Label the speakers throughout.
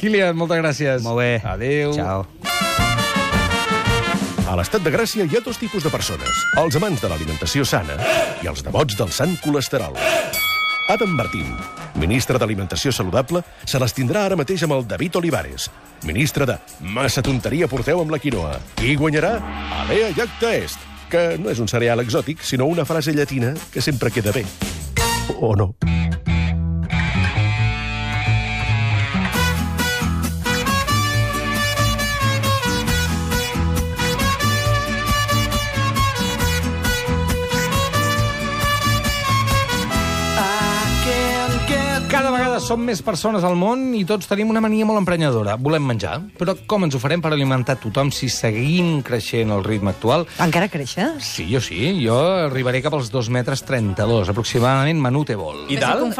Speaker 1: Kilian, moltes gràcies.
Speaker 2: Molt bé.
Speaker 1: Adéu.
Speaker 2: Ciao.
Speaker 3: A l'Estat de Gràcia hi ha dos tipus de persones. Els amants de l'alimentació sana i els devots del sant colesterol. Adam Martín, ministre d'Alimentació Saludable, se les tindrà ara mateix amb el David Olivares, ministre de Massa tonteria porteu amb la quinoa. Qui guanyarà? Alea Jacta Est, que no és un cereal exòtic, sinó una frase llatina que sempre queda bé. O no.
Speaker 1: Cada vegada som més persones al món i tots tenim una mania molt emprenyadora. Volem menjar, però com ens ho farem per alimentar tothom si seguim creixent al ritme actual?
Speaker 4: Encara creixes?
Speaker 1: Sí, jo sí. Jo arribaré cap als 2,32 metres, aproximadament Manute-Bol.
Speaker 5: I dalt?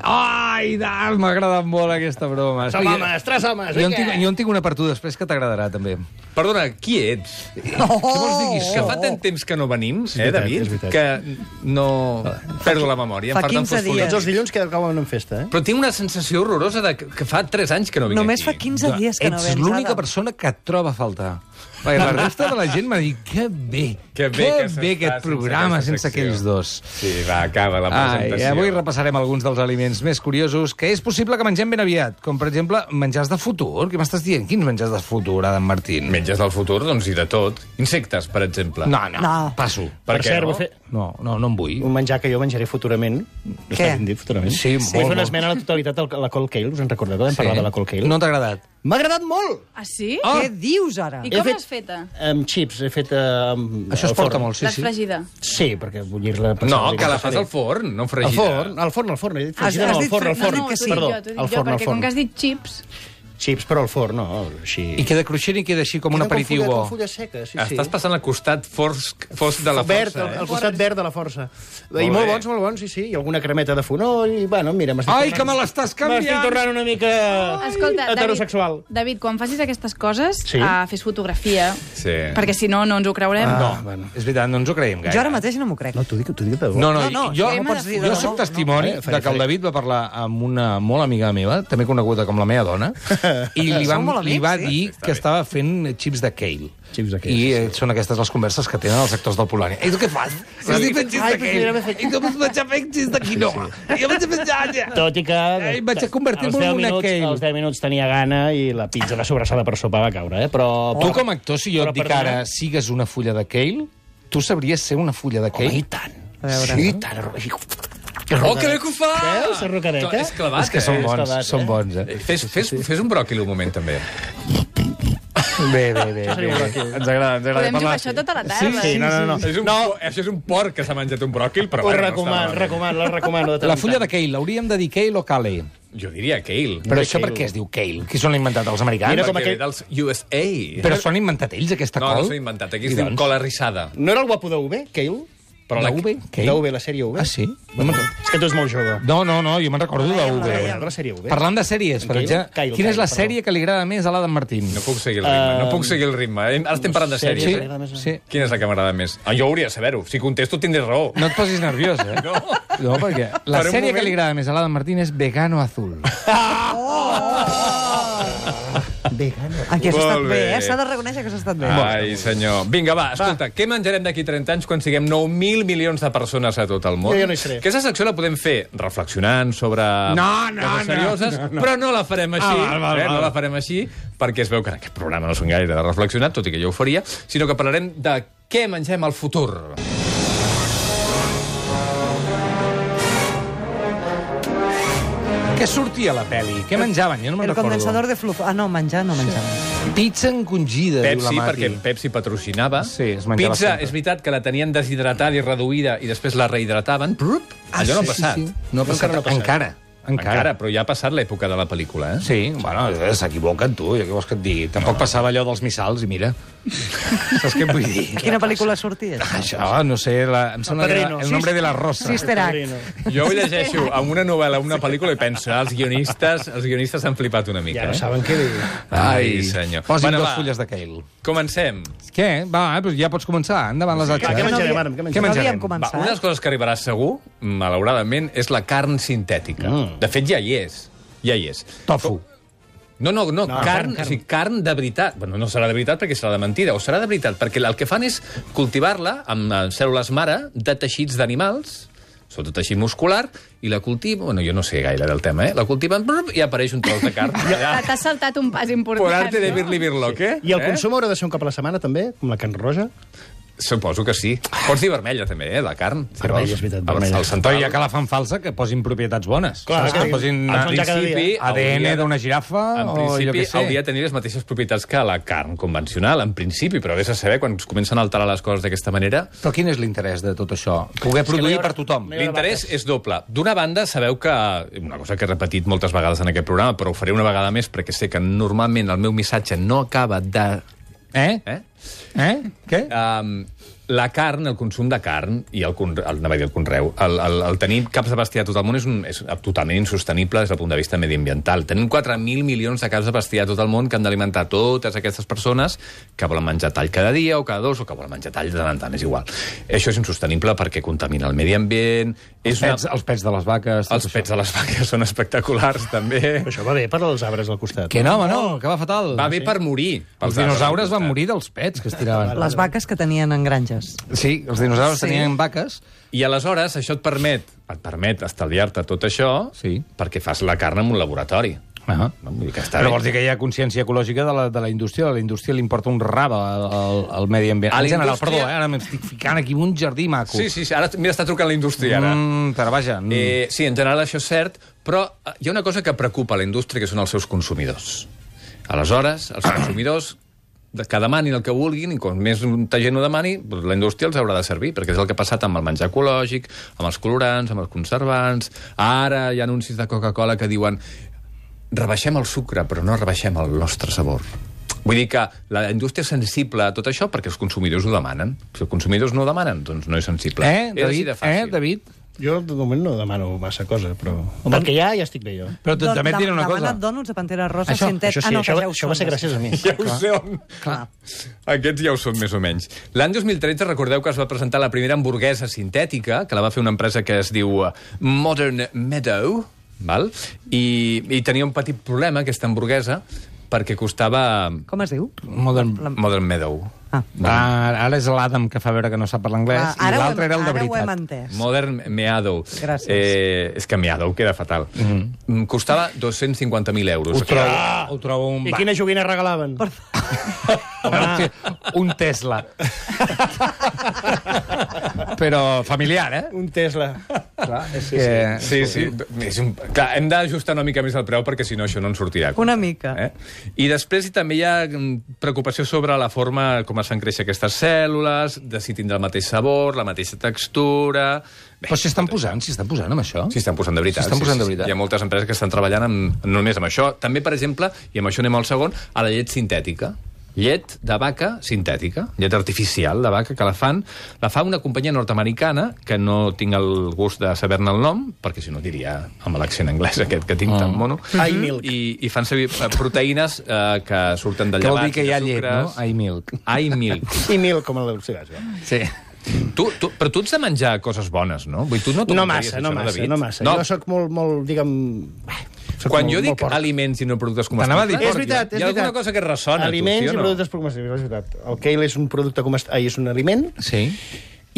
Speaker 1: Ai, dalt! M'ha agradat molt aquesta broma.
Speaker 5: Som homes, 3 homes,
Speaker 1: Jo
Speaker 5: vinga!
Speaker 1: en tinc una per tu després que t'agradarà, també.
Speaker 5: Perdona, qui ets?
Speaker 1: Què vols dir,
Speaker 5: Que fa tant temps que no venim, David,
Speaker 6: és veritat.
Speaker 5: que no... Perdo la memòria.
Speaker 4: Fa 15 dies.
Speaker 6: Tots els dilluns que acaben en festa, eh?
Speaker 5: Però tinc una sensació horrorosa de que fa 3 anys que no vinc
Speaker 4: Només
Speaker 5: aquí.
Speaker 4: fa 15 dies que no
Speaker 1: Ets
Speaker 4: vens.
Speaker 1: l'única
Speaker 4: Adam.
Speaker 1: persona que et troba a faltar. Perquè la resta de la gent m'ha dit que bé
Speaker 5: Que bé que s'està
Speaker 1: aquest programa
Speaker 5: sense
Speaker 1: sense
Speaker 5: aquesta
Speaker 1: aquells dos.
Speaker 5: Sí, va, acaba la
Speaker 1: Ai,
Speaker 5: presentació.
Speaker 1: avui repassarem alguns dels aliments més curiosos que és possible que mengem ben aviat, com per exemple menjars de futur. Què m'estàs dient? Quins menjars de futur, Adam Martín?
Speaker 5: Menges del futur, doncs, i de tot. Insectes, per exemple.
Speaker 1: No, passo.
Speaker 5: Per què
Speaker 6: cert,
Speaker 5: no?
Speaker 6: vull fer
Speaker 1: No en vull.
Speaker 6: un menjar que jo menjaré futurament. Està ben dit, futurament.
Speaker 1: Sí,
Speaker 6: Vull fer
Speaker 1: molt,
Speaker 6: una
Speaker 1: molt.
Speaker 6: esmena a la totalitat a la Cold Kale. Us en recordeu? Vam parlar de la Cold Kale.
Speaker 1: No t'ha agradat?
Speaker 6: M'ha agradat molt!
Speaker 7: Ah, sí?
Speaker 4: Què dius, ara?
Speaker 7: I
Speaker 6: He
Speaker 7: com
Speaker 6: fet-
Speaker 7: l'has feta?
Speaker 6: Amb chips, he fet...
Speaker 1: Això es porta molt, sí,
Speaker 7: L'has
Speaker 1: sí.
Speaker 7: fregida?
Speaker 6: Sí, perquè bullir-la...
Speaker 5: No, que la fas al forn, no
Speaker 6: Al
Speaker 5: fregida.
Speaker 6: forn, al forn. He dit
Speaker 4: Has
Speaker 6: fregida, no,
Speaker 4: dit
Speaker 6: al forn, al
Speaker 4: fre-
Speaker 6: forn.
Speaker 4: no, no,
Speaker 7: t'ho
Speaker 6: Perdó,
Speaker 7: dic jo,
Speaker 6: al forn,
Speaker 7: perquè
Speaker 6: al forn.
Speaker 7: com que has dit chips...
Speaker 6: Chips, però al forn, no, així...
Speaker 1: I queda cruixent i queda així com un aperitiu bo.
Speaker 6: Com fulla seca, sí, sí.
Speaker 5: Estàs passant al costat fosc de la
Speaker 6: verd,
Speaker 5: força,
Speaker 6: al costat verd de la força. I
Speaker 5: Molt
Speaker 6: molt bons, sí, sí. I alguna cremeta de fonoll, i, bueno, mira,
Speaker 1: Ai, que me l'estàs
Speaker 6: M'estic
Speaker 1: canviant!
Speaker 6: tornant una mica
Speaker 7: Escolta,
Speaker 6: heterosexual.
Speaker 7: David, quan facis aquestes coses,
Speaker 6: Sí.
Speaker 7: fes fotografia,
Speaker 5: Sí.
Speaker 7: perquè si no, no ens ho creurem.
Speaker 1: No,
Speaker 6: bueno.
Speaker 1: és veritat, no ens ho creiem gaire.
Speaker 4: Jo ara mateix no m'ho crec.
Speaker 6: No, t'ho dic de debò.
Speaker 1: No,
Speaker 4: No,
Speaker 1: jo,
Speaker 4: què m'has dit de
Speaker 1: jo
Speaker 4: debò?
Speaker 1: soc testimoni
Speaker 6: No, faré,
Speaker 1: de que el
Speaker 6: faré.
Speaker 1: David va parlar amb una molt amiga meva, també coneguda com la meva dona, i li
Speaker 4: Sou molt
Speaker 1: li va
Speaker 4: amics, sí?
Speaker 1: dir que estava fent xips de kale.
Speaker 6: Xips de kale,
Speaker 1: I
Speaker 6: sí.
Speaker 1: són aquestes les converses que tenen els actors del Polònia. I tu què fas? Estic fent xips de kale. I tu vaig fer xips de quinoa. I jo vaig fer llanya.
Speaker 6: Tot i que...
Speaker 1: Ai, vaig a convertir-me
Speaker 6: als
Speaker 1: en
Speaker 6: 10
Speaker 1: una
Speaker 6: minuts,
Speaker 1: kale.
Speaker 6: als 10 minuts tenia gana i la pizza de sobrassada per sopar va caure, eh? Però...
Speaker 1: Tu, com a actor, si jo
Speaker 6: Però
Speaker 1: et dic
Speaker 6: perdona.
Speaker 1: ara sigues una fulla de kale, tu sabries ser una fulla de kale?
Speaker 6: I tant.
Speaker 4: A veure.
Speaker 6: Sí, i tant.
Speaker 5: Oh, que bé que ho fa!
Speaker 6: Veus, la rocadeta?
Speaker 5: És clavat,
Speaker 1: És que són
Speaker 6: és
Speaker 1: bons,
Speaker 6: clavat,
Speaker 1: són bons, eh?
Speaker 5: Fes un bròquil un moment, també.
Speaker 1: Bé. Ens agrada
Speaker 7: Podem
Speaker 1: parlar.
Speaker 7: jugar això tota la tarda.
Speaker 6: Sí, no.
Speaker 5: Això és un porc que s'ha menjat un bròquil, però
Speaker 6: Ho
Speaker 5: bueno,
Speaker 6: recomano, la recomano. de tant
Speaker 1: La
Speaker 6: en
Speaker 1: fulla
Speaker 6: tant.
Speaker 1: de kale, l'hauríem de dir kale o kale?
Speaker 5: Jo diria kale.
Speaker 1: Però
Speaker 6: de
Speaker 1: això per
Speaker 6: kale.
Speaker 1: què es diu kale? Qui s'ho han inventat, els americans?
Speaker 6: Mira com
Speaker 5: Perquè ve
Speaker 6: aquell-
Speaker 5: dels USA.
Speaker 1: Però s'ho han inventat ells, aquesta
Speaker 5: No,
Speaker 1: col?
Speaker 5: no s'ho he inventat. Aquí
Speaker 1: I
Speaker 5: es diu
Speaker 1: doncs?
Speaker 5: cola rissada.
Speaker 6: No era el guapo de UV, Kale?
Speaker 1: Però la UV? Kale?
Speaker 6: De UV, la sèrie UV.
Speaker 1: Ah, sí?
Speaker 6: És que tu ets molt jove.
Speaker 1: No, jo me'n recordo de
Speaker 6: De
Speaker 1: UV.
Speaker 6: la sèrie UV.
Speaker 1: Parlant de sèries, per
Speaker 6: Kale?
Speaker 1: exemple,
Speaker 6: Kale,
Speaker 1: quina és la
Speaker 6: perdó.
Speaker 1: sèrie que li agrada més a l'Adam Martín?
Speaker 5: No puc seguir el ritme, Ara estem parlant de
Speaker 6: Sèries,
Speaker 5: sèries.
Speaker 1: Sí,
Speaker 6: que m'agrada més.
Speaker 1: sí.
Speaker 5: Quina és la que m'agrada més? Jo hauria de saber-ho. Si contesto, tindré raó.
Speaker 1: No et posis nerviós, eh? No, perquè la
Speaker 5: Per un
Speaker 1: sèrie que
Speaker 5: moment-
Speaker 1: li agrada més a l'Adam Martín és Vegano Azul.
Speaker 6: Vegano.
Speaker 4: Aquí has
Speaker 5: Molt
Speaker 4: estat bé,
Speaker 5: bé.
Speaker 4: eh? S'ha de reconèixer que has estat bé.
Speaker 5: Ai, senyor. Vinga, va, escolta, què menjarem d'aquí 30 anys quan siguem 9.000 milions de persones a tot el món?
Speaker 6: Jo no hi seré.
Speaker 5: Aquesta secció la podem fer reflexionant sobre coses serioses, però no la farem així, no la farem així, perquè es veu que en aquest programa no són gaire de reflexionar, tot i que jo ho faria, sinó que parlarem de què mengem al futur.
Speaker 1: Què sortia a la pel·li? Què menjaven? Jo no me'n
Speaker 4: El
Speaker 1: recordo.
Speaker 4: condensador de flujo. Ah, no, menjar no menjava.
Speaker 1: Pizza encongida, diu la
Speaker 5: Pepsi,
Speaker 1: Mati.
Speaker 5: perquè Pepsi patrocinava.
Speaker 1: Sí, es menjava
Speaker 5: Pizza,
Speaker 1: sempre.
Speaker 5: és veritat que la tenien deshidratada i reduïda i després la rehidrataven. Allò no ha passat.
Speaker 1: No ha passat. Encara.
Speaker 5: Però ja ha passat l'època de la pel·lícula, eh?
Speaker 1: Sí, bueno, s'equivoquen, tu, ja què vols que et digui? Tampoc passava allò dels missals, i mira. Saps què et vull dir?
Speaker 4: Quina pel·lícula sortia?
Speaker 1: Això, no sé, em sembla que era
Speaker 6: Padrino.
Speaker 1: El nombre de la rosa.
Speaker 4: Sister Act.
Speaker 5: Jo ho llegeixo en una novel·la, una pel·lícula, i penso, els guionistes han flipat una mica.
Speaker 6: Ja no saben què dir.
Speaker 5: Ai, senyor.
Speaker 1: Posin
Speaker 5: Bueno,
Speaker 1: dos
Speaker 5: va,
Speaker 1: fulles de kale.
Speaker 5: Comencem.
Speaker 1: Què? Va, doncs ja pots començar. Endavant les
Speaker 6: Què
Speaker 1: atxes.
Speaker 6: menjarem, Adam? Què
Speaker 1: Què
Speaker 6: menjarem?
Speaker 4: No
Speaker 1: menjarem?
Speaker 4: havíem
Speaker 5: Va,
Speaker 4: començat.
Speaker 5: una de les coses que arribarà segur, malauradament, és la carn sintètica. De fet, ja hi és. Ja hi és.
Speaker 1: Tofu.
Speaker 5: No, carn, o sigui, carn de veritat. Bueno, no serà de veritat perquè serà de mentida, o serà de veritat perquè el que fan és cultivar-la amb cèl·lules mare de teixits d'animals, sobretot teixit muscular, i la cultiven... Bueno, jo no sé gaire del tema, La cultiven i apareix un tros de carn.
Speaker 7: T'has saltat un pas important.
Speaker 5: Por arte de Birli-Birloque.
Speaker 6: I el consum haurà de ser un cop a la setmana, també? Com la carn roja?
Speaker 5: Suposo que sí. Pots dir vermella, també, la carn.
Speaker 6: Vermella, és veritat, vermella.
Speaker 5: El central...
Speaker 1: Però ja que la fan falsa, que posin propietats bones.
Speaker 6: Clar,
Speaker 1: que posin
Speaker 6: en principi,
Speaker 1: ADN d'una girafa
Speaker 5: en
Speaker 1: o jo
Speaker 5: principi,
Speaker 1: què sé.
Speaker 5: hauria de tenir les mateixes propietats que la carn convencional, en principi, però vés a saber quan es comencen a alterar les coses d'aquesta manera.
Speaker 1: Però quin és l'interès de tot això? Poder produir per tothom.
Speaker 5: L'interès és doble. D'una banda, sabeu que... Una cosa que he repetit moltes vegades en aquest programa, però ho faré una vegada més perquè sé que normalment el meu missatge no acaba de...
Speaker 1: Què?
Speaker 5: La carn, el consum de carn i el conreu, el tenir caps de bestiar a tot el món és totalment insostenible des del punt de vista mediambiental. Tenim 4.000 milions de caps de bestiar a tot el món que han d'alimentar totes aquestes persones que volen menjar tall cada dia o cada dos o que volen menjar tall de tant en tant, és igual. Això és insostenible perquè contamina el medi ambient...
Speaker 1: Els pets de les vaques...
Speaker 5: Els pets de les vaques són espectaculars, també.
Speaker 6: Però això va bé per als arbres al costat.
Speaker 1: Que no, home, no, que va fatal.
Speaker 5: Va bé per morir.
Speaker 1: Els dinosaures van morir dels pets que es tiraven.
Speaker 4: Les vaques que tenien en granges.
Speaker 1: Sí, els dinosaures tenien vaques.
Speaker 5: I aleshores això et permet estalviar-te tot això perquè fas la carn en un laboratori. Vull dir que està
Speaker 1: Però
Speaker 5: bé.
Speaker 1: vols dir que hi ha consciència ecològica de la indústria? A la indústria li importa un rave al medi ambient. En general, perdó, ara m'estic ficant aquí un jardí maco.
Speaker 5: Sí, ara mira, està trucant la indústria, ara.
Speaker 1: Però vaja...
Speaker 5: Sí, en general això és cert, però hi ha una cosa que preocupa la indústria, que són els seus consumidors. Aleshores, els consumidors que demanin el que vulguin, i com més gent ho demani, la indústria els haurà de servir, perquè és el que ha passat amb el menjar ecològic, amb els colorants, amb els conservants. Ara hi ha anuncis de Coca-Cola que diuen rebaixem el sucre, però no rebaixem el nostre sabor. Vull dir que la indústria és sensible a tot això perquè els consumidors ho demanen. Si els consumidors no ho demanen, doncs no és sensible.
Speaker 1: David?
Speaker 6: Jo, de moment, no demano massa cosa, però... Amb el que hi ha, ja estic bé, jo.
Speaker 1: Però també et diré una cosa.
Speaker 4: Demana't dònuts de Pantera Rosa
Speaker 6: Això
Speaker 4: sintet...
Speaker 6: sí, això va ser gràcies a mi.
Speaker 5: Ja ho són. Aquests ja ho són, més o menys. L'any 2013, recordeu que es va presentar la primera hamburguesa sintètica, que la va fer una empresa que es diu Modern Meadow, val? I tenia un petit problema, aquesta hamburguesa, perquè costava...
Speaker 4: Com es diu?
Speaker 5: Modern Meadow.
Speaker 1: Ara és l'Adam que fa veure que no sap parlar anglès i l'altre era el de veritat.
Speaker 4: Ara ho hem entès.
Speaker 5: Modern Meadow.
Speaker 4: Gràcies.
Speaker 5: És que Meadow queda fatal. Costava 250.000 euros.
Speaker 1: Ho trobo un...
Speaker 6: I quina joguina regalaven?
Speaker 1: Un Tesla. Però familiar,
Speaker 6: Un Tesla.
Speaker 1: Clar, és que...
Speaker 5: Sí. Clar, hem d'ajustar una mica més el preu perquè si no això no en sortirà.
Speaker 4: Una mica.
Speaker 5: I després també hi ha preocupació sobre la forma com es fan créixer aquestes cèl·lules, de si tindrà el mateix sabor, la mateixa textura...
Speaker 1: Però s'hi estan posant amb això?
Speaker 5: S'hi estan posant de veritat. Hi ha moltes empreses que estan treballant només amb això. També, per exemple, i amb això anem al segon, a la llet sintètica. Llet de vaca sintètica, llet artificial de vaca, que la fa una companyia nord-americana, que no tinc el gust de saber-ne el nom, perquè si no diria amb l'accent anglès aquest que tinc tan mono.
Speaker 6: iMilk.
Speaker 5: I fan servir proteïnes que surten de llevats.
Speaker 1: Que vol dir que hi ha llet, no? iMilk.
Speaker 5: iMilk.
Speaker 6: iMilk, com el cigarro.
Speaker 1: Sí.
Speaker 5: Però tu ets de menjar coses bones, no? Vull dir, tu
Speaker 6: No massa. Jo soc molt, diguem...
Speaker 5: Quan jo dic aliments i no productes comestibles...
Speaker 6: És veritat.
Speaker 5: Hi ha alguna cosa que ressona,
Speaker 6: aliments
Speaker 5: tu, sí o no?
Speaker 6: i productes comestibles, és veritat. El kale és un producte és un aliment.
Speaker 1: Sí.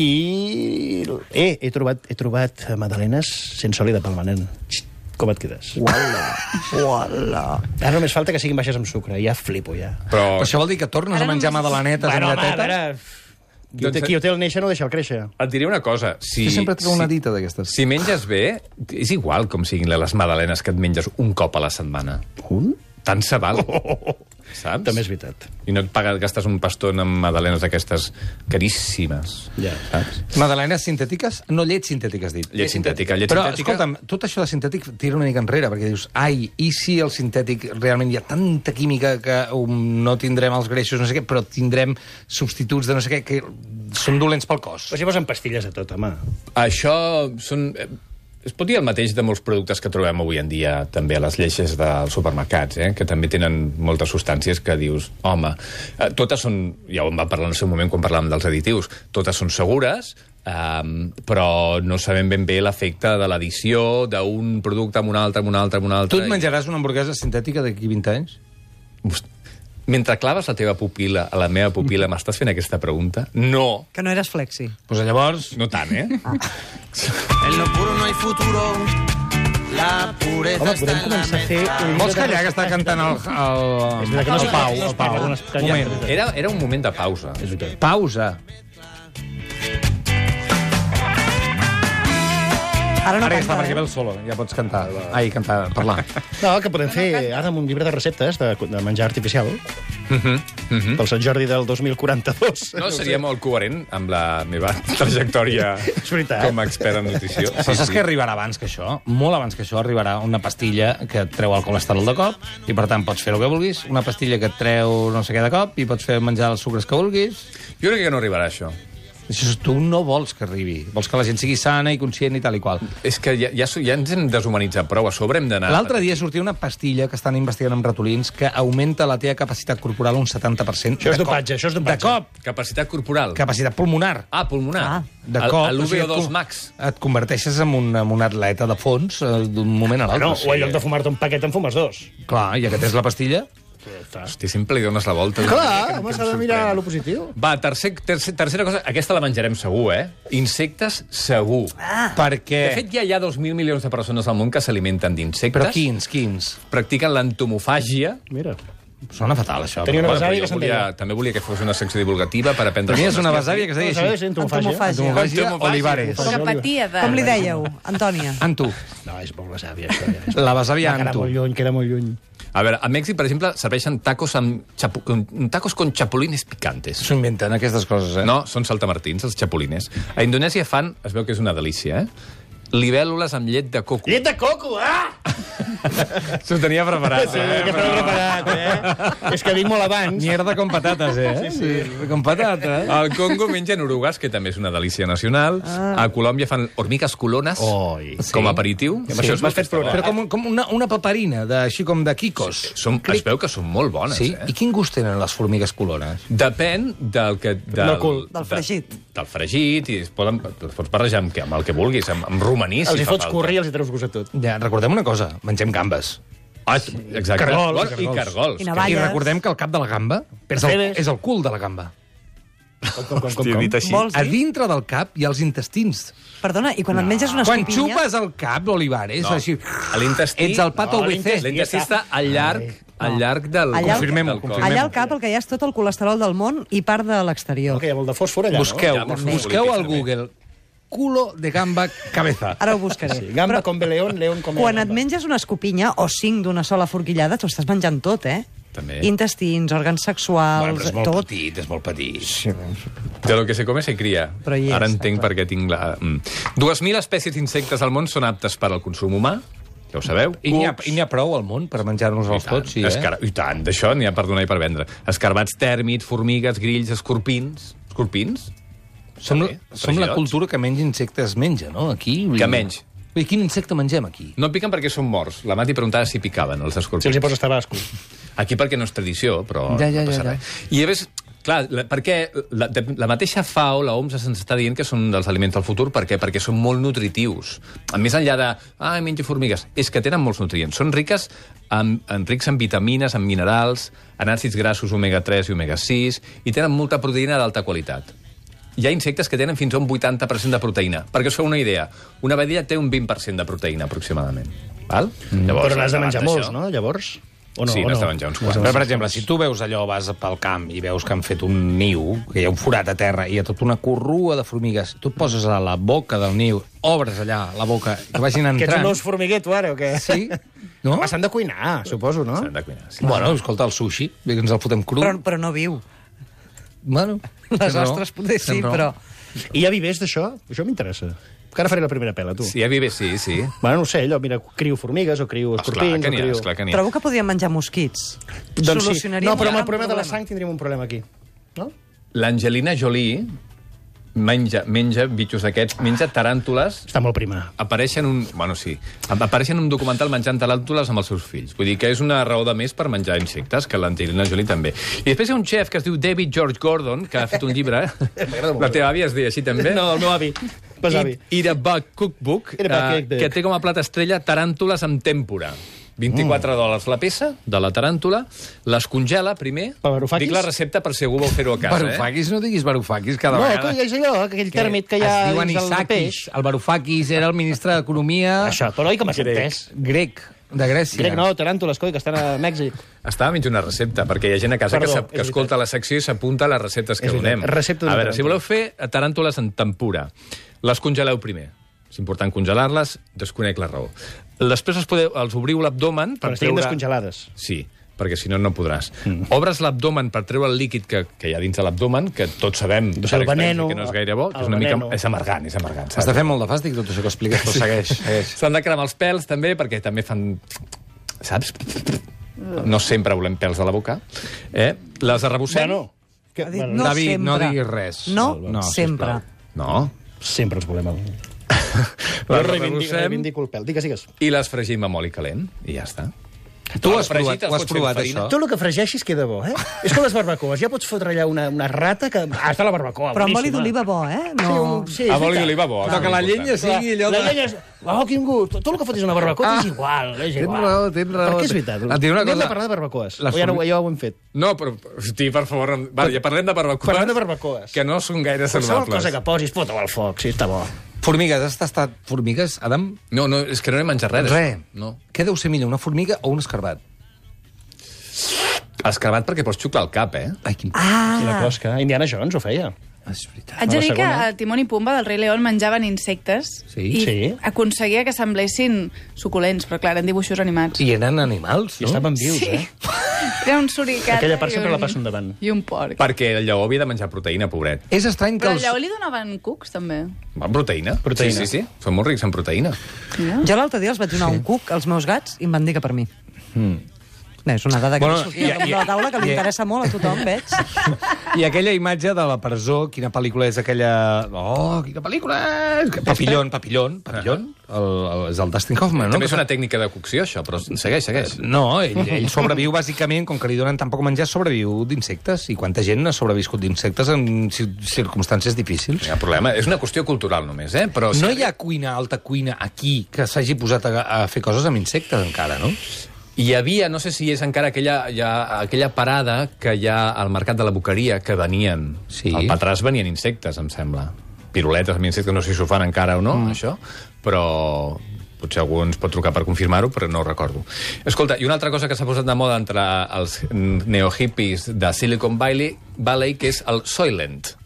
Speaker 6: I he trobat magdalenes sense oli de palma, nen. Com et quedes? Uala. Ara només falta que siguin baixes amb sucre. Ja flipo, ja.
Speaker 5: Però
Speaker 1: això vol dir que tornes a menjar magdalenetes amb lletetes?
Speaker 6: Qui ho té el néixer no deixa el créixer.
Speaker 5: Et diré una cosa.
Speaker 1: Jo sempre trobo una dita d'aquestes.
Speaker 5: Si menges bé, és igual com siguin les magdalenes que et menges un cop a la setmana.
Speaker 6: Un?
Speaker 5: Tant se val. Saps?
Speaker 6: També és veritat.
Speaker 5: I no et gastes un pastó en magdalenes d'aquestes caríssimes.
Speaker 6: Ja.
Speaker 5: Saps?
Speaker 1: Magdalenes sintètiques? No, llet sintètica, has dit.
Speaker 5: Llet sintètica.
Speaker 1: Però, escolta'm, tot això de sintètic tira una mica enrere, perquè dius, i si el sintètic realment hi ha tanta química que no tindrem els greixos, no sé què, però tindrem substituts de no sé què, que són dolents pel cos.
Speaker 6: Però si posen pastilles a tot, home.
Speaker 5: Això són... Es pot dir el mateix de molts productes que trobem avui en dia també a les lleixes dels supermercats, que també tenen moltes substàncies que dius, home, totes són, ja ho vam parlar en el seu moment quan parlàvem dels additius, totes són segures, però no sabem ben bé l'efecte de l'addició d'un producte amb un altre, amb un altre, amb un altre.
Speaker 1: Tu et menjaràs una hamburguesa sintètica d'aquí 20 anys?
Speaker 5: Mentre claves la teva pupil·la a la meva pupil·la, m'estàs fent aquesta pregunta? No.
Speaker 4: Que no eres flexi.
Speaker 1: Doncs llavors...
Speaker 5: No tant, eh?
Speaker 2: En lo puro no hay futuro. La pureza
Speaker 6: Home, podem començar a fer...
Speaker 1: Vols callar que està cantant el Pau? Moment.
Speaker 5: Era un moment de pausa.
Speaker 1: Pausa.
Speaker 4: Ara no
Speaker 1: Ara ja està,
Speaker 4: canta,
Speaker 1: perquè ve el solo. Ja pots cantar. Ai, cantar, parlar.
Speaker 6: No, que podem fer ara amb un llibre de receptes de menjar artificial pel Sant Jordi del 2042.
Speaker 5: No, seria molt coherent amb la meva trajectòria
Speaker 6: veritat.
Speaker 5: com a expert en nutrició.
Speaker 1: Però saps que arribarà abans que això? Molt abans que això arribarà una pastilla que et treu el colesterol de cop i, per tant, pots fer el que vulguis. Una pastilla que et treu no sé què de cop i pots fer menjar els sucres que vulguis.
Speaker 5: Jo crec que no arribarà això.
Speaker 1: Això tu no vols que arribi. Vols que la gent sigui sana i conscient i tal i qual.
Speaker 5: És que ja ens hem deshumanitzat prou, a sobre hem d'anar...
Speaker 1: L'altre dia sortia una pastilla que estan investigant amb ratolins que augmenta la teva capacitat corporal un 70%.
Speaker 6: Això és dopatge, això és
Speaker 1: De
Speaker 6: dopatge.
Speaker 1: cop.
Speaker 5: Capacitat corporal.
Speaker 1: Capacitat pulmonar.
Speaker 5: Ah, pulmonar.
Speaker 1: De cop.
Speaker 5: A l'UVO2 Max.
Speaker 1: Et converteixes en un atleta de fons d'un moment a l'altre.
Speaker 6: No, o en lloc de fumar-te un paquet en fumes dos.
Speaker 1: Clar, ja que tens la pastilla...
Speaker 5: Hosti, sempre li dones la volta.
Speaker 6: Clar, home, s'ha de mirar lo positiu.
Speaker 5: Va, tercera cosa, aquesta la menjarem segur, eh? Insectes, segur.
Speaker 1: Perquè...
Speaker 5: De fet, ja hi ha 2.000 milions de persones al món que s'alimenten d'insectes.
Speaker 1: Però quins?
Speaker 5: Practiquen l'entomofàgia.
Speaker 6: Mira.
Speaker 1: Sona fatal, això.
Speaker 6: Tenia una
Speaker 5: Bueno,
Speaker 6: besàvia
Speaker 5: però
Speaker 6: que se'n
Speaker 5: jo
Speaker 6: deia.
Speaker 5: també volia que fos una secció divulgativa per aprendre...
Speaker 1: Tenies una besàvia que es deia
Speaker 6: ¿Sabes?
Speaker 1: així.
Speaker 6: Entomofàgia.
Speaker 1: Entomofàgia Olivares.
Speaker 7: Que patia de...
Speaker 4: Com li dèieu, Antònia?
Speaker 1: Antu.
Speaker 6: No, és molt besàvia, això. Ja.
Speaker 1: La besàvia
Speaker 6: Queda
Speaker 1: Antu.
Speaker 6: molt lluny, queda molt lluny.
Speaker 5: A veure, a Mèxic, per exemple, serveixen tacos tacos con chapulines picantes.
Speaker 1: S'ho inventen, aquestes coses, eh?
Speaker 5: No, són saltamartins, els chapulines. A Indonèsia fan, es veu que és una delícia, libèl·lules amb llet de coco.
Speaker 6: Llet de coco, ah!
Speaker 5: S'ho tenia preparat,
Speaker 6: Sí, que t'ho he preparat, eh? És que vinc molt abans.
Speaker 1: Mierda con patates, eh? Sí. Con patates.
Speaker 5: Al Congo mengen orugues, que també és una delícia nacional. A Colòmbia fan hormigues colones
Speaker 6: Oi.
Speaker 5: com a aperitiu.
Speaker 6: I amb això m'has fet plorar.
Speaker 1: Però com una paperina, així com de quicos.
Speaker 5: Es veu que són molt bones,
Speaker 1: Sí? I quin gust tenen les formigues colones?
Speaker 5: Depèn del que...
Speaker 6: Del cul.
Speaker 4: Del fregit.
Speaker 5: Del fregit, i es pots barrejar amb el que vulguis, amb romaní,
Speaker 6: Els
Speaker 5: si
Speaker 6: hi
Speaker 5: fa
Speaker 6: fots
Speaker 5: falta.
Speaker 6: curri i els hi treus gust a tot.
Speaker 1: Ja, recordem una cosa, mengem gambes.
Speaker 5: Ah, exacte.
Speaker 6: Cargols,
Speaker 5: I cargols.
Speaker 4: I
Speaker 1: I
Speaker 4: navalles.
Speaker 1: recordem que el cap de la gamba és el cul de la gamba.
Speaker 5: Hòstia, dit així.
Speaker 4: Vols
Speaker 1: A
Speaker 4: dir?
Speaker 1: dintre del cap hi ha els intestins.
Speaker 4: Perdona, i quan et menges una
Speaker 1: Quan
Speaker 4: escopinya...
Speaker 1: xupes el cap, Olivares,
Speaker 5: No.
Speaker 1: així...
Speaker 5: A l'intestí...
Speaker 1: Ets el pato
Speaker 6: No,
Speaker 1: WC.
Speaker 5: L'intestí està al llarg del...
Speaker 4: Allà-
Speaker 1: Confirmem-ho,
Speaker 5: del cos.
Speaker 1: confirmem-ho.
Speaker 4: Allà al cap el que hi ha és tot el colesterol del món i part de l'exterior.
Speaker 6: Que hi ha molt de fòsfor allà,
Speaker 1: Busqueu,
Speaker 5: Ja, molts
Speaker 1: busqueu al
Speaker 5: polítics,
Speaker 1: Google culo de gamba cabeza.
Speaker 4: Ara ho buscaré.
Speaker 6: no? Sí, gamba com león, león com
Speaker 4: Quan et
Speaker 6: gamba.
Speaker 4: menges una escopinya o 5 d'una sola forquillada, t'ho estàs menjant tot, eh?
Speaker 5: També.
Speaker 4: Intestins, òrgans sexuals,
Speaker 1: Bueno, però és molt
Speaker 4: tot.
Speaker 1: petit, és molt petit.
Speaker 5: De lo que se come se cria.
Speaker 4: Però hi és,
Speaker 5: Ara entenc
Speaker 4: clar.
Speaker 5: per què tinc la... 2.000 espècies d'insectes al món són aptes per al consum humà, ja ho sabeu.
Speaker 1: I n'hi
Speaker 5: Cucs,
Speaker 1: ha prou al món per menjar-nos-els tots, sí,
Speaker 5: I tant, d'això n'hi ha per donar i per vendre. Escarbats tèrmits, formigues, grills, escorpins... Escorpins?
Speaker 1: Som
Speaker 5: També,
Speaker 1: som la
Speaker 5: fregidors.
Speaker 1: cultura que menys insectes menja, no? Aquí...
Speaker 5: Que menys.
Speaker 1: I quin insecte mengem aquí?
Speaker 5: No piquen perquè són morts. La Mati preguntava si picaven, els
Speaker 6: Si
Speaker 5: escorpins.
Speaker 6: els hi poses tabasco.
Speaker 5: Aquí perquè no és tradició, però
Speaker 1: Ja,
Speaker 5: no passa
Speaker 1: ja.
Speaker 5: res. I a més, clar, perquè la mateixa FAO, la OMS, se'ns està dient que són dels aliments del futur. Per què? Perquè són molt nutritius. A més enllà de, menjo formigues, és que tenen molts nutrients. Són rics en vitamines, en minerals, en àcids grassos omega-3 i omega-6, i tenen molta proteïna d'alta qualitat. Hi ha insectes que tenen fins a un 80% de proteïna. Perquè us feu una idea, una vedella té un 20% de proteïna, aproximadament. Val?
Speaker 6: Però n'has de menjar
Speaker 5: davant
Speaker 6: molts,
Speaker 5: d'això-
Speaker 6: no? Llavors... O no,
Speaker 5: Sí,
Speaker 6: o
Speaker 5: n'has
Speaker 6: no?
Speaker 5: de menjar uns
Speaker 6: N'has
Speaker 5: quants.
Speaker 6: de
Speaker 1: Però,
Speaker 6: menjar
Speaker 1: per exemple, si tu veus allò, vas pel camp i veus que han fet un niu, que hi ha un forat a terra i hi ha tota una corrua de formigues, tu et poses a la boca del niu, obres allà la boca, que vagin
Speaker 6: Que ets
Speaker 1: entrant...
Speaker 6: un os formiguer, tu, ara, o què?
Speaker 1: Sí? No?
Speaker 6: Home, s'han de cuinar, suposo, no?
Speaker 5: S'han de cuinar, sí.
Speaker 1: Bueno, escolta, el sushi, que ens el fotem cru.
Speaker 4: Però no viu.
Speaker 1: Bueno,
Speaker 4: Les
Speaker 1: tens raó,
Speaker 4: ostres potser sí,
Speaker 1: tens raó.
Speaker 4: però...
Speaker 6: I hi ha vivers d'això? Això m'interessa. Que ara faré la primera pela, tu.
Speaker 5: Sí, a Vives, sí.
Speaker 6: Bueno, no ho sé, allò, mira, crio formigues o crio escorpins...
Speaker 5: Esclar que n'hi ha,
Speaker 6: o crio...
Speaker 5: esclar que n'hi ha.
Speaker 4: Trobo que podríem menjar mosquits.
Speaker 6: Doncs sí.
Speaker 4: Solucionaríem
Speaker 6: No, però
Speaker 4: un
Speaker 6: amb el
Speaker 4: gran
Speaker 6: problema de la sang tindríem un problema aquí. No?
Speaker 5: L'Angelina Jolie menja bitxos d'aquests, menja taràntules.
Speaker 6: Està molt prima.
Speaker 5: Apareixen un documental menjant taràntules amb els seus fills. Vull dir que és una raó de més per menjar insectes, que l'Angelina Jolie també. I després hi ha un xef que es diu David George Gordon, que ha fet un llibre. La teva àvia es deia així també?
Speaker 6: No, el meu avi.
Speaker 5: Eat a Bug Cookbook, que té com a plat estrella taràntules amb tèmpora. $24 la peça de la taràntula, les congela primer. Dic la recepta per si algú vol fer-ho a casa.
Speaker 1: Varoufakis, no diguis Varoufakis cada vegada.
Speaker 6: No, és allò, aquell tèrmit que hi ha dins del peix.
Speaker 1: El Varoufakis era el ministre d'Economia...
Speaker 6: Això, però oi com has entès?
Speaker 1: Grec, de Grècia.
Speaker 6: Grec no, taràntules, coi, que estan a Mèxic.
Speaker 5: Estava mig una recepta, perquè hi ha gent a casa que escolta la secció i s'apunta a les receptes que donem. A veure, si voleu fer taràntules en tempura, les congeleu primer. És important congelar-les, desconec la raó. Després els obriu l'abdomen...
Speaker 6: Però estiguin descongelades.
Speaker 5: Sí, perquè si no, no podràs. Obres l'abdomen per treure el líquid que hi ha dins de l'abdomen, que tots sabem per experiència que no és gaire bo, que és una mica... És amargant.
Speaker 1: Està fent molt de fàstic tot això que expliques, però segueix.
Speaker 5: S'han de cremar els pèls, també, perquè també fan... Saps? No sempre volem pèls a la boca. Les arrebossem...
Speaker 1: David, no diguis res.
Speaker 4: No, sempre.
Speaker 5: No.
Speaker 6: Sempre els volem.
Speaker 5: Les
Speaker 6: reivindico el pèl. Digues.
Speaker 5: I les fregim amb oli calent, i ja està.
Speaker 1: Tu has provat això?
Speaker 6: Tot el que fregeixis queda bo, eh? És com les barbacoes. Ja pots fotre allà una rata que... està la barbacoa,
Speaker 4: però amb oli d'oliva bo, eh?
Speaker 6: No.
Speaker 5: Sí, amb oli d'oliva bo.
Speaker 1: Però que la llenya sigui allò...
Speaker 6: La llenya és... Oh, quin gust. Tot el que fotis una barbacoa és igual.
Speaker 1: Tens raó.
Speaker 6: Perquè és veritat. Anem de parlar de barbacoes. Ja ho hem fet.
Speaker 5: No, però, hosti, per favor... Ja parlem de barbacoes. Que no són gaire saludables.
Speaker 6: Qualsevol cosa que posis, fota-ho al foc, sí, està bo.
Speaker 1: Formigues, has tastat formigues, Adam?
Speaker 5: No, és que no he menjat res.
Speaker 1: Res. Què deu ser millor, una formiga o un escarbat?
Speaker 5: Escarbat perquè pots xuclar el cap,
Speaker 1: Ai, quin...
Speaker 6: I la closca. Indiana Jones ho feia.
Speaker 1: És veritat.
Speaker 7: Haig de dir que a Timón i Pumba del Rei León menjaven insectes i aconseguia que semblessin suculents, però clar, eren dibuixos animats.
Speaker 1: I eren animals, no?
Speaker 6: I estaven vius,
Speaker 7: Era un suricata
Speaker 6: aquella part sempre la passo endavant.
Speaker 7: I un porc.
Speaker 5: Perquè el lleó havia de menjar proteïna, pobret.
Speaker 1: És estrany que
Speaker 7: però al lleó li donaven cucs, també.
Speaker 5: Proteïna. Sí. Són molt rics en proteïna.
Speaker 4: Jo l'altre dia els vaig donar un cuc als meus gats i em van dir que per mi. És una dada que sortia de la taula que li interessa molt a tothom, veig.
Speaker 1: I aquella imatge de la presó, quina pel·lícula és aquella... Oh, quina pel·lícula és! Papillon. És el Dustin Hoffman, no?
Speaker 5: També és una tècnica de cocció, això, però segueix.
Speaker 1: No, ell sobreviu, bàsicament, com que li donen tan poc menjar, sobreviu d'insectes. I quanta gent ha sobreviscut d'insectes en circumstàncies difícils.
Speaker 5: No hi ha problema. És una qüestió cultural, només, Però
Speaker 1: no hi ha alta cuina aquí que s'hagi posat a fer coses amb insectes, encara, no?
Speaker 5: Hi havia, no sé si és encara aquella parada que hi ha al mercat de la Boqueria, que venien.
Speaker 1: Sí.
Speaker 5: Al Patràs venien insectes, em sembla. Piruletes amb insectes, no sé si ho fan encara o no, això, però potser algú ens pot trucar per confirmar-ho, però no ho recordo. Escolta, i una altra cosa que s'ha posat de moda entre els neohippies de Silicon Valley, que és el Soylent.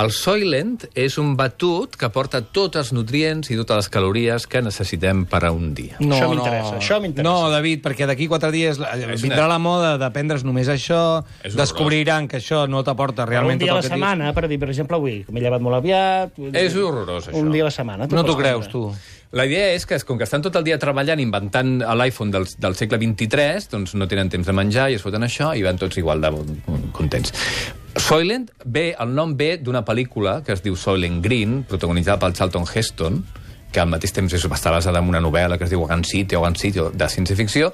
Speaker 5: El Soylent és un batut que porta tots els nutrients i totes les calories que necessitem per a un dia.
Speaker 6: No, això m'interessa.
Speaker 1: No, David, perquè d'aquí 4 dies vindrà la moda de prendre's només això, descobriran que això no t'aporta realment tot el que
Speaker 6: un dia a la setmana, per dir, per exemple, avui, m'he llevat molt aviat...
Speaker 5: És horrorós, això.
Speaker 6: Un dia a la setmana.
Speaker 1: No t'ho creus, tu?
Speaker 5: La idea és que, com que estan tot el dia treballant, inventant l'iPhone del segle XXIII, doncs no tenen temps de menjar i es foten això i van tots igual de contents. Soylent el nom ve d'una pel·lícula que es diu Soylent Green, protagonitzada pel Charlton Heston, que al mateix temps està basada en una novel·la que es diu Ogan City, de ciència-ficció,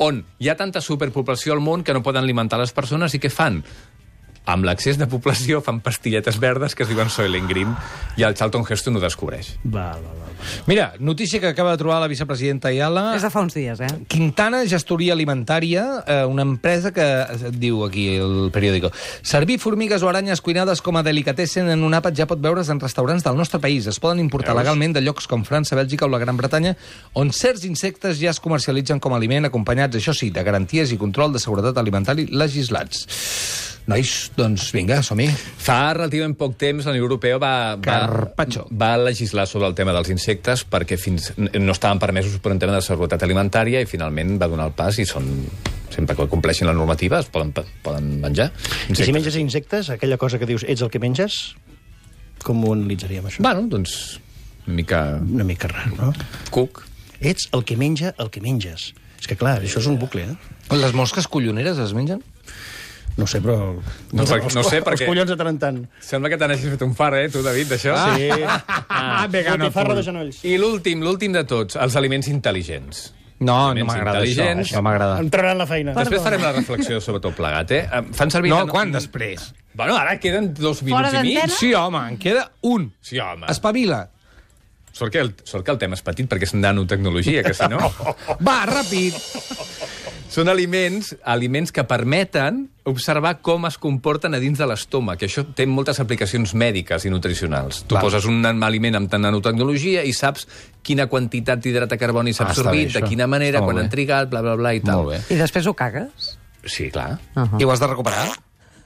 Speaker 5: on hi ha tanta superpoblació al món que no poden alimentar les persones i què fan? Amb l'excés de població fan pastilletes verdes que es diuen Soylent Green i el Charlton Heston ho descobreix.
Speaker 1: Mira, notícia que acaba de trobar la vicepresidenta Ayala.
Speaker 4: És de fa uns dies,
Speaker 1: Quintana Gestoria Alimentària, una empresa que diu aquí el periòdico: servir formigues o aranyes cuinades com a delicatessen en un àpat ja pot veure's en restaurants del nostre país. Es poden importar legalment de llocs com França, Bèlgica o la Gran Bretanya, on certs insectes ja es comercialitzen com a aliment, acompanyats, això sí, de garanties i control de seguretat alimentari legislats. Nois, doncs vinga, som-hi.
Speaker 5: Fa relativament poc temps la Unió Europea va legislar sobre el tema dels insectes perquè no estaven permesos per un tema de seguretat alimentària i finalment va donar el pas i sempre que compleixin la normativa es poden menjar insectes.
Speaker 6: I si menges insectes, aquella cosa que dius ets el que menges, com ho analitzaríem, això?
Speaker 5: Bueno, doncs
Speaker 6: una mica rar, no?
Speaker 5: Cuc.
Speaker 6: Ets el que menja el que menges. És que clar, això és un bucle,
Speaker 1: Les mosques colloneres es mengen?
Speaker 6: No sé, però...
Speaker 5: No sé, perquè...
Speaker 6: Els collons de tant en tant.
Speaker 5: Sembla que te n'hagis fet un far, tu, David, d'això?
Speaker 6: Sí. Botifarra de genolls.
Speaker 5: I l'últim de tots, els aliments intel·ligents.
Speaker 1: No m'agrada això. No m'agrada.
Speaker 6: Entraran la feina.
Speaker 5: Després farem la reflexió sobre tot plegat, Fan servir...
Speaker 1: No, quan després?
Speaker 5: Bueno, ara queden 2 minuts i mig.
Speaker 1: Sí, home, en queda un.
Speaker 5: Sí, home.
Speaker 1: Espavila.
Speaker 5: Sort que el tema és petit, perquè és nanotecnologia, que si no...
Speaker 1: Va, ràpid.
Speaker 5: Són aliments que permeten observar com es comporten a dins de l'estómac, que això té moltes aplicacions mèdiques i nutricionals. Tu poses un aliment amb nanotecnologia i saps quina quantitat d'hidrat de carboni s'ha absorbit, de quina manera, quan han trigat, bla, bla, bla, i tal.
Speaker 4: I després ho cagues?
Speaker 5: Sí, clar.
Speaker 1: I ho has de recuperar?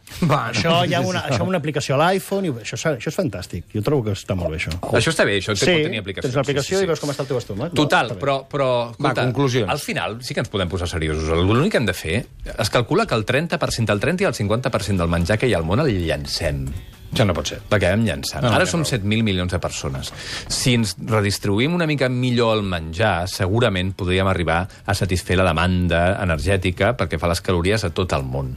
Speaker 6: Això hi ha una aplicació a l'iPhone, i això és fantàstic. Jo trobo que està molt bé, això.
Speaker 5: Això està bé, això pot tenir aplicacions.
Speaker 6: Tens l'aplicació i veus com està el teu estómac.
Speaker 5: Total, però
Speaker 1: conclusions.
Speaker 5: Al final sí que ens podem posar seriosos. L'únic que hem de fer, es calcula que el 30% i el 50% del menjar que hi ha al món el llancem.
Speaker 1: Això no pot ser.
Speaker 5: L'acabem llançant. Ara som 7.000 milions de persones. Si ens redistribuïm una mica millor el menjar, segurament podríem arribar a satisfer la demanda energètica perquè fa les calories a tot el món.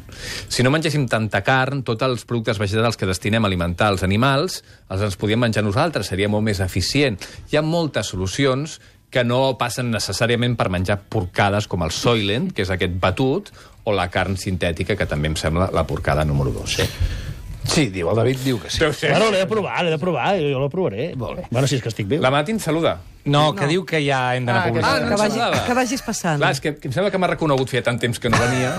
Speaker 5: Si no mengéssim tanta carn, tots els productes vegetals que destinem a alimentar els animals, els ens podíem menjar nosaltres, seria molt més eficient. Hi ha moltes solucions que no passen necessàriament per menjar porcades com el Soylent, que és aquest batut, o la carn sintètica, que també em sembla la porcada número 2.
Speaker 1: Sí, el David diu que sí.
Speaker 6: Bueno, l'he de provar, jo la provaré. Bueno, si és que estic viu.
Speaker 5: La Mati ens saluda.
Speaker 1: No, que diu que ja hem d'anar a publicitat.
Speaker 4: Que vagis passant.
Speaker 5: Clar, és que em sembla que m'ha reconegut feia tant temps que no venia.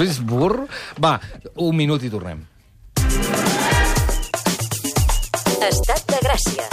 Speaker 1: És burro. Va, 1 minut i tornem.
Speaker 8: Estat de Gràcia.